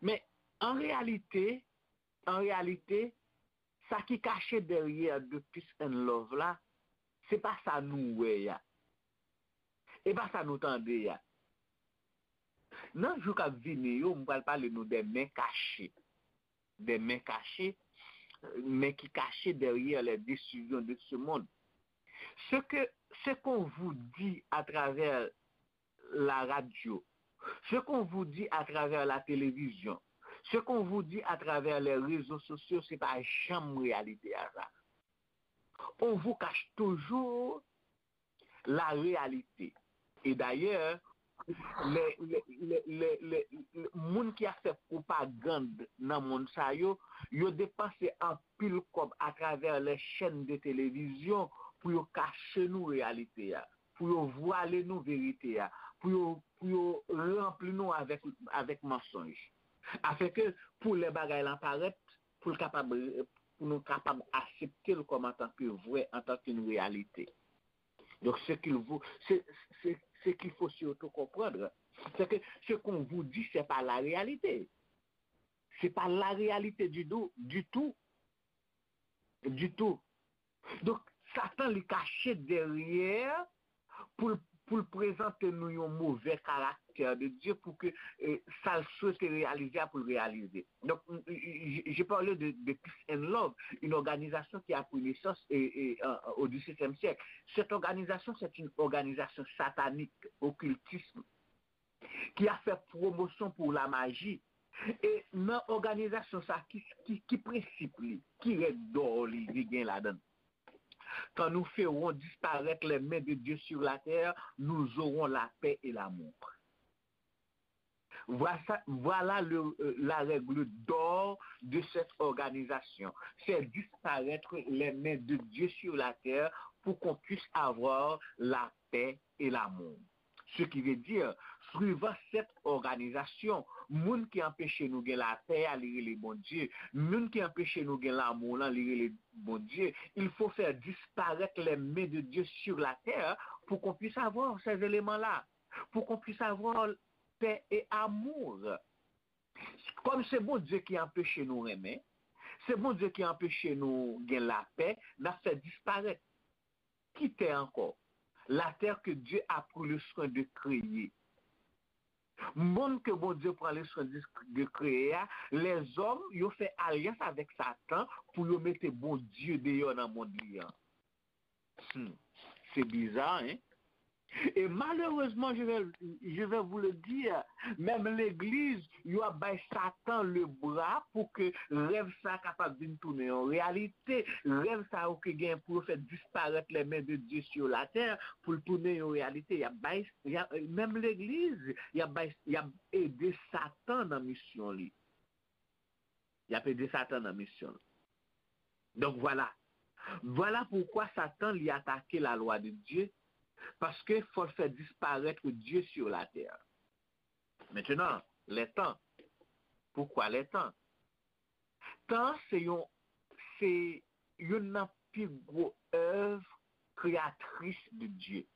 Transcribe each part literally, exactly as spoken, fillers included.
Men, an reyalite, an reyalite, sa ki kache dèyè de Peace and Love la, se pa sa nou wè a. E pa sa nou tande a. Nan jou k ap vini yo, m pral pale nou de men kache. De men kache, men ki kache derrière les décisions de ce monde. Ce que, ce qu'on vous dit à travers la radio, ce qu'on vous dit à travers la télévision, ce qu'on vous dit à travers les réseaux sociaux, se pa janm reyalite a sa. On vous cache toujours la réalité. E dayè, lè, lè, lè, lè, lè, lè, moun ki ap fè pwopagann nan mond sa yo, yo depanse anpil kòb atravè les chaînes de télévision pou yo kache nou reyalite a, pou yo vwale nou verite a, pou yo, pou yo ranpli nou avèk, avèk mansonj. Afenke pou lè bagay lan parèt, pou l kapab, pou nou kapab aksepte l kòm antanke vrè, antanke yon reyalite. Donk, ce qu'il vous, ce, ce, ce qu'il faut surtout comprendre, c'est que ce qu'on vous dit, c'est pas la réalité. C'est pas la réalité du tout, du tout, du tout. Donk, Satan li kache dèyè pou l, pou l prezante nou yon move karaktè de Dye, pou ke, eh, sa l swete reyalize a pou l reyalize. Donc, j-, j-, j'ai parlé de, de Peace and Love, une organisation qui a pris naissance, eh, eh, en, au dix-septième siècle. Cette organisation, c'est une organisation satanique, occultisme, ki ap fè pwomosyon pou la maji. E nan òganizasyon sa, ki, ki, ki prensip li, ki règ dò li, li gen ladan l? Quand nous ferons disparaître les mains de Dieu sur la terre, nous aurons la paix et l'amour. Voilà, voilà le, euh, la règle d'or de cette organisation. Faire disparaître les mains de Dieu sur la terre pour qu'on puisse avoir la paix et l'amour. Ce qui veut dire, suivant cette organisation, moun ki anpeche nou gen lapè a, li rele Bondye. Moun ki anpeche nou gen lanmou lan, li rele Bondye. Il faut faire disparaître les mains de Dieu sur la terre pour qu'on puisse avoir ces éléments-là, pour qu'on puisse avoir paix et amour. Kòm se Bondye ki anpeche nou renmen, se Bondye ki anpeche nou gen lapè, n ap fè disparèt. Ki tè ankò? La terre que Dieu a pris le soin de créer. Mond ke Bondye pran le soin de, de kreye a, lèzòm, yo fè alyans avèk Satan pou yo mete Bondye deyò nan mond li an. Hmm. Se biza, hein? E malerezman, je vais, je vais vous le dire, menm legliz, yo ap bay Satan le bra pou ke rèv sa kapab vin tounen yon reyalite. Rèv sa yo ki gen pou yo fè disparèt les mains de Dieu sur la terre, pou l tounen yon reyalite. Y ap bay, y ap, menm legliz, y ap bay, y ap ede Satan nan misyon li. Y ap ede Satan nan misyon l. Donk, vwala. Vwala poukwa Satan li atake la lwa de Dye, paske fò l fè disparèt Dye sur la terre. Maintenant, les temps. Pourquoi les temps? Tan se yon, se youn nan pi gwo èv kreyatris de Dye.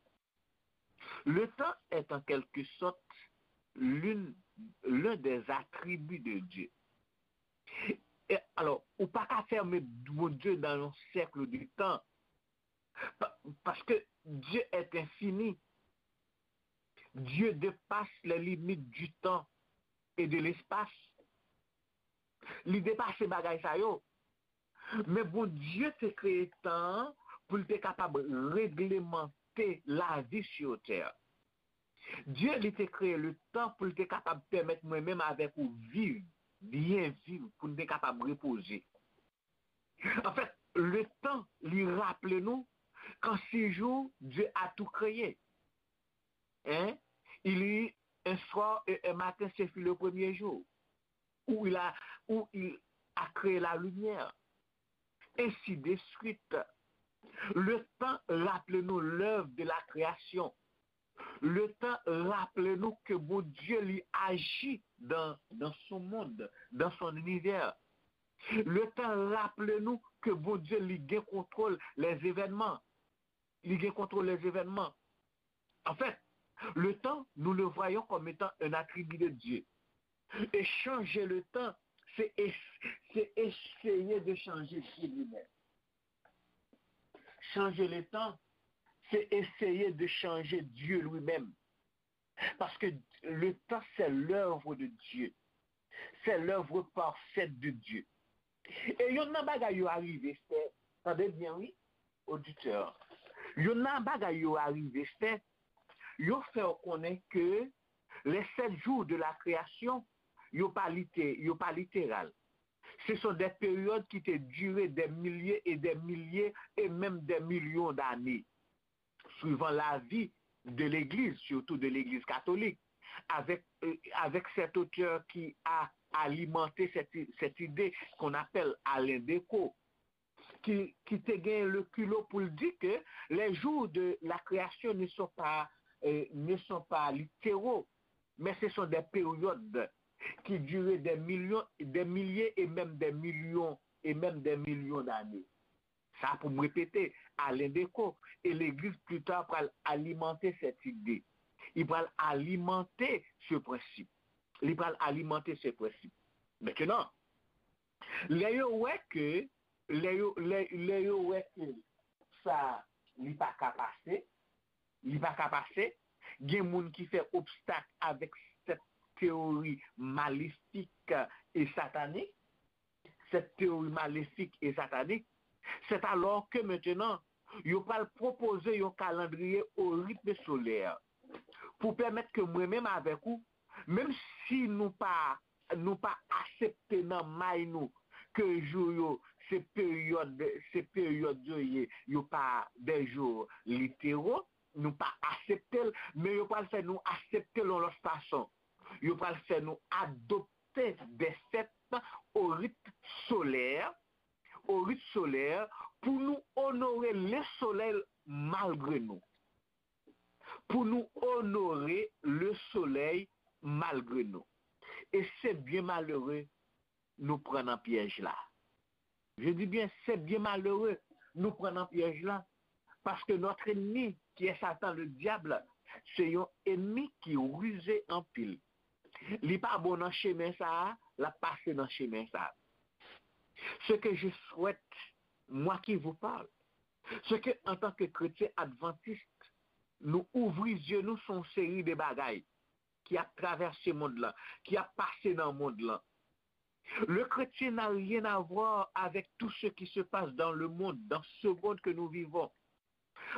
Le temps est en quelque sorte l'une, l'un des attributs de Dieu. E, alò, ou pa ka fèmen Bondye nan yon sèk de tan. Pa, paske Dieu est infini. Dieu dépasse les limites du temps et de l'espace. Li depase bagay sa yo. Men Bondye te kreye tan an pou l te kapab reglemante lavi sur terre. Dye, li te kreye le tan pou l te kapab pèmèt mwen menm avèk ou viv, byen viv, pou n te kapab repoze. Anfèt, le tan, li raple nou qu'en six jours, Dieu a tout créé. Hein? Il y eut un soir et un matin, ce fut le premier jour. Où il a, où il a créé la lumière. Ainsi de suite. Le tan raple nou lèv de la kreyasyon. Le tan raple nou ke Bondye li aji dans, dans son monde, dans son univers. Le tan raple nou ke Bondye li gen kontwòl les événements. Li gen kontwòl les événements. En fait, le temps, nous le voyons comme étant un attribut de Dieu. Et changer le temps, c'est es- c'est essayer de changer Dieu lui-même. Changer le temps, c'est essayer de changer Dieu lui-même. Parce que le temps, c'est l'œuvre de Dieu. C'est l'œuvre parfaite de Dieu. E yonn nan bagay yo arive fè, tande byen wi, oditè, yonn nan bagay yo arive fè, yo fè w konnen ke les sept jours de la création, yo pa lite, yo pa literal. Ce sont des périodes qui te durent des milliers et des milliers et même des millions d'années, suivant l'avis de l'Église, surtout de l'Église catholique, avec, euh, avec cet auteur qui a alimenté cette, cette idée qu'on appelle Alain Decaux, qui, qui te gagne le culot pour dire que les jours de la création ne sont pas, euh, ne sont pas littéraux, mais ce sont des périodes qui durent des millions, des milliers et même des millions et même des millions d'années. Sa pou m repete, Alain Decaux e legliz pli ta pral alimante cette idée. Li pral alimante ce principe. Li pral alimante ce principe. Maintenant, lè yo wè ke, lè yo, lè, lè yo wè ke sa, li pa ka pase, li pa ka pase, gen moun ki fè obstak avèk cette théorie maléfique et satanique, cette théorie maléfique et satanique, c'est alors que maintenant, yo pral pwopoze yon kalandriye o ritme solè pou pèmèt ke mwen menm avèk ou, menm si nou pa, nou pa aksepte nan may nou ke jou yo, se peryòd, se peryòd yo ye, yo pa des jours littéraux, nou pa aksepte l, men yo pral fè nou aksepte l yon lòt fason. Yo pral fè nou adopte des fêtes au rite solaire, au rite solaire, pou nou onore le soleil malgre nou. Pou nou onore le soleil malgre nou. E se byen malere nou pran nan pyèj la. Je dis bien, c'est bien malheureux nou pran nan pyèj la. Parce que notre ennemi, qui est Satan le diable, se yon enmi ki rize anpil. Li pa bon nan chemen sa a, l ap pase nan chemen sa a. Ce que je souhaite, moi qui vous parle, c'est que, en tant que chrétien adventiste, nou ouvri zye nou sou yon seri de bagay ki ap travèse mond lan, ki ap pase nan mond lan. Le chrétien n'a rien à voir avec tout ce qui se passe dans le monde, dans ce monde que nous vivons.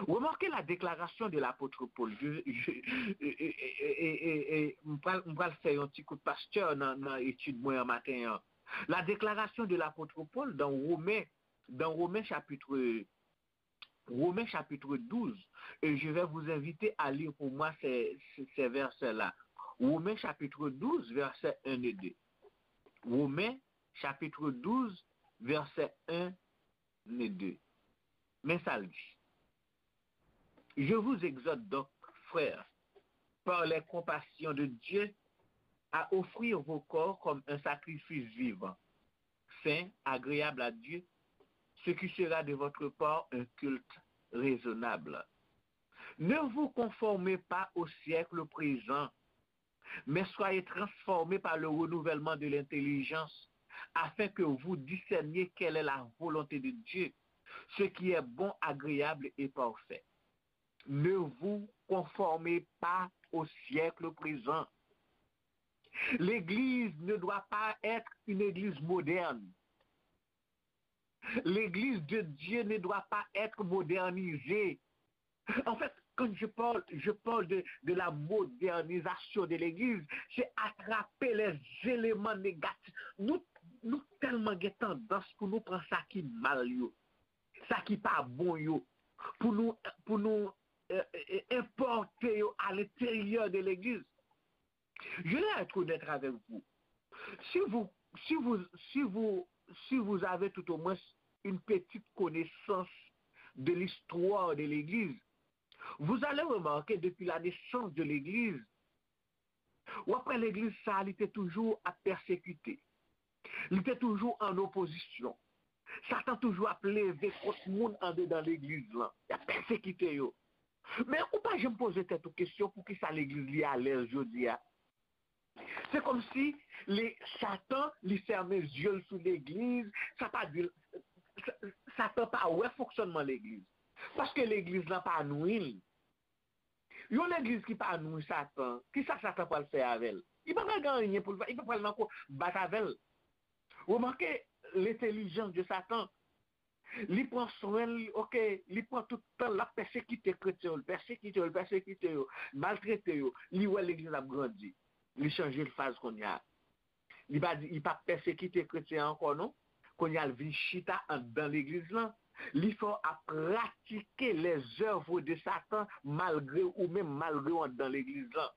Remarquez la déclaration de l'apôtre Paul. Je, je, e, e, e, e, e, e, m pral, m pral fè yon ti kout pastè nan, nan etid mwen an maten an. La déclaration de l'apôtre Paul dans Romains, dans Romains chapitre, Romains chapitre douze, et je vais vous inviter à lire pour moi ces, ces, ces versets-là. Romains chapitre douze, versets un et deux. Romains chapitre douze, versets un et deux. Men sa l di. Je vous exhorte donc, frères, par les compassions de Dieu, à offrir vos corps comme un sacrifice vivant, saint, agréable à Dieu, ce qui sera de votre part un culte raisonnable. Ne vous conformez pas au siècle présent, mais soyez transformés par le renouvellement de l'intelligence, afin que vous discerniez quelle est la volonté de Dieu, ce qui est bon, agréable et parfait. Ne vous conformez pas au siècle présent. L'Église ne doit pas être une église moderne. L'Église de Dieu ne doit pas être modernisée. En fait, quand je parle, je parle de, de la modernisation de l'Église, c'est attraper les éléments négatifs. Nou, nou tèlman gen tandans pou nou pran sa ki mal yo, sa ki pa bon yo, pou nou, pou nou, euh, euh, enpòte yo à l'intérieur de l'Église. Je vais être honnête avec vous. Si vous, si vous, si vous, si vous avez tout au moins une petite connaissance de l'histoire de l'Église, vous allez remarquer depuis la naissance de l'Église, w ap wè legliz sa a, li te toujou ap pèsekite. Li te toujou an opozisyon. Satan toujou ap leve kont moun andedan legliz lan. Y ap pèsekite yo. Men ou pa janm poze tèt ou kesyon poukisa legliz li alèz jodi a. Se kòmsi li, Satan, li fèmen zye l sou legliz, sa pa di, Sa- Satan pa wè fonksyònman legliz. Paske legliz lan pa nwi l. Yon legliz ki pa nwi Satan, kisa Satan pral fè avè l? Li pa pral gen anyen pou l fè, li pa pral nan ko bat avè l. Remake lentèlijans de Satan. Li pran swen l, ok, li pran tout tan l ap pèsekite kretyen yo, l pèsekite yo, l pèsekite yo, maltrete yo. Li wè legliz ap grandi. Li chanje l faz kounye a. Li pa di, li pa pèsekite kretyen ankò non. Kounye a l vin chita anndan legliz lan. Li fè w ap pratike les œuvres de Satan malgre ou menm, malgre w anndan legliz lan.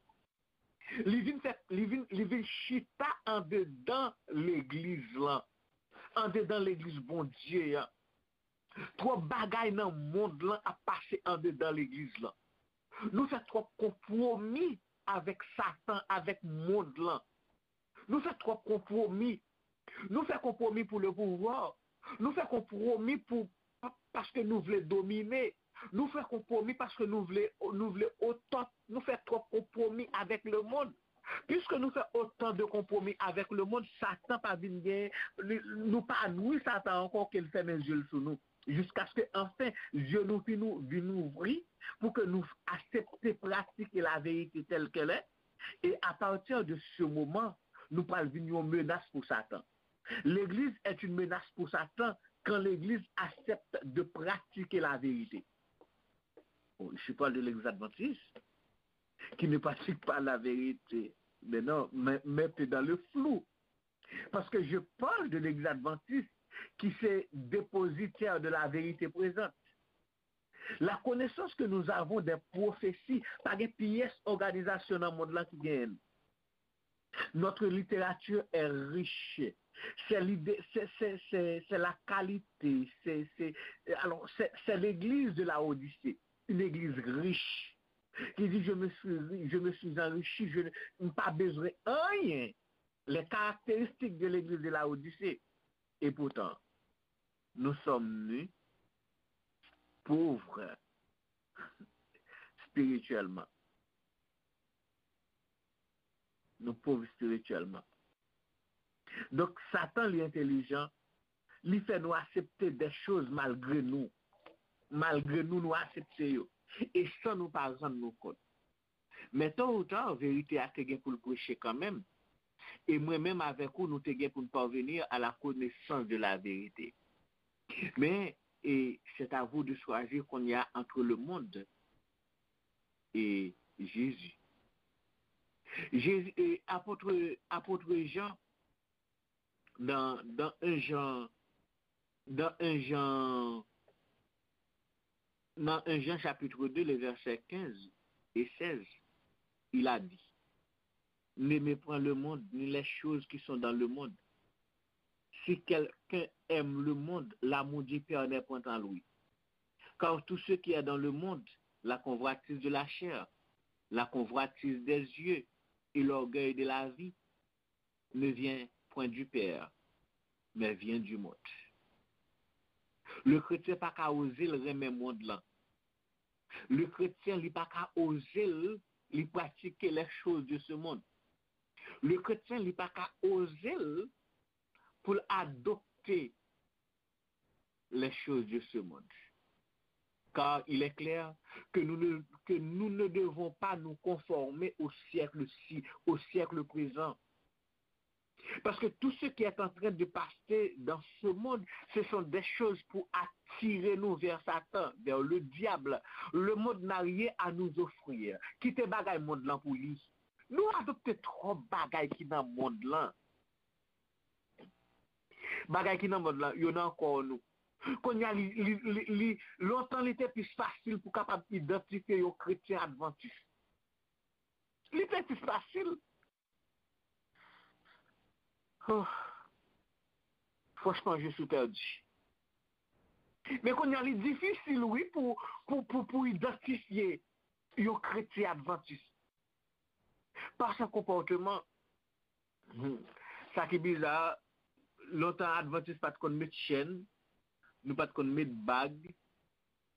Li vin fè, li vin, li vin chita andedan legliz lan. Andedan legliz Bondye an. Twòp bagay nan mond lan ap pase andedan legliz lan. Nou fè twòp konpwomi avèk Satan, avèk mond lan. Nou fè twòp konpwomi. Nou fè konpwomi pou le pouvwa. Nou fè konpwomi pou pa- paske nou vle domine. Nou fè konpwomi paske nou vle nou vle otòt. Nou fè twòp konpwomi avèk le mond. Piske nou fè otan de konpwomi avèk le mond, Satan pa vin gen, li- nou pa nwi Satan ankò ke l fèmen zye l sou nou. Jiskaske anfen, zye nou vin ou- vin ouvri pou ke nou aksepte pratike laverite tèl kèl è. E apati de se moman, nou pral vin yon menas pou Satan. L'église est une menace pour Satan quand l'église accepte de pratiquer la vérité. Bon, je parle de l'église adventiste qui ne pratique pas la vérité. Mais non, mais, mais t'es dans le flou. Parce que je parle de l'église adventiste qui se dépositaire de la vérité présente. La connaissance que nous avons des prophéties, pa gen pyès òganizasyon nan mond lan ki genyen l. Notre littérature est riche. C'est l'idée, c'est, c'est, c'est, c'est la qualité, c'est, c'est, alors, c'est, c'est l'église de la Odyssée, une église riche, qui dit, je me suis, ri- je me suis enrichi, je ne, m pa bezwen anyen. Les caractéristiques de l'église de la Odyssée. Et pourtant, nous sommes nus, pauvres spirituellement. Nou pov espirityèlman. Donk, Satan, li entelijan, li fè nou aksepte de choz malgre nou. Malgre nou, nou aksepte yo. E san nou pa rann nou kont. Men tôt ou tard, verite a te gen pou l preche kanmenm. E mwen menm avèk ou, nou te gen pou n parvenir à la connaissance de la vérité. Men, e c'est à vous de choisir kounye a entre le monde et Jésus. Jésus, e apot, apot Jan, dans, dans un Jean, dans un Jean, dans un Jean chapitre deux, les versets quinze et seize, il a dit, n'aimez point le monde, ni les choses qui sont dans le monde. Si quelqu'un aime le monde, l'amour du Père n'est point en lui. Car tout ce qui est dans le monde, la convoitise de la chair, la convoitise des yeux et l'orgueil de la vie, ne vient point du Père, mais vient du monde. Le kretyen pa ka oze l renmen mond lan. Le kretyen, li pa ka oze l, li pratike les choses de ce monde. Le kretyen, li pa ka oze l pou l adopte les choses de ce monde. Car il est clair que nous ne, que nous ne devons pas nous conformer au siècle-ci, au siècle présent. Parce que tout ce qui est en train de passer dans ce monde, ce sont des choses pour attirer nous vers Satan, vers le diable. Le monde n'a rien à nous offrir. Kite bagay mond lan pou li. Nou adopte twòp bagay ki nan mond lan. Bagay ki nan mond lan, yo nan kò nou. Kounye a, li, li, li, li, lontan li te plis fasil pou kapab idantifye yon kretyen advantis. Li te plis fasil. Oh. Franchman, je suis perdu. Men kounye a, li difisil, wi, pou, pou, pou, pou idantifye yon kretyen advantis. Pa sa konpòteman. Hmm. Sa ki biza, lontan advantis pa t konn met chèn, nou pa t konn met bag,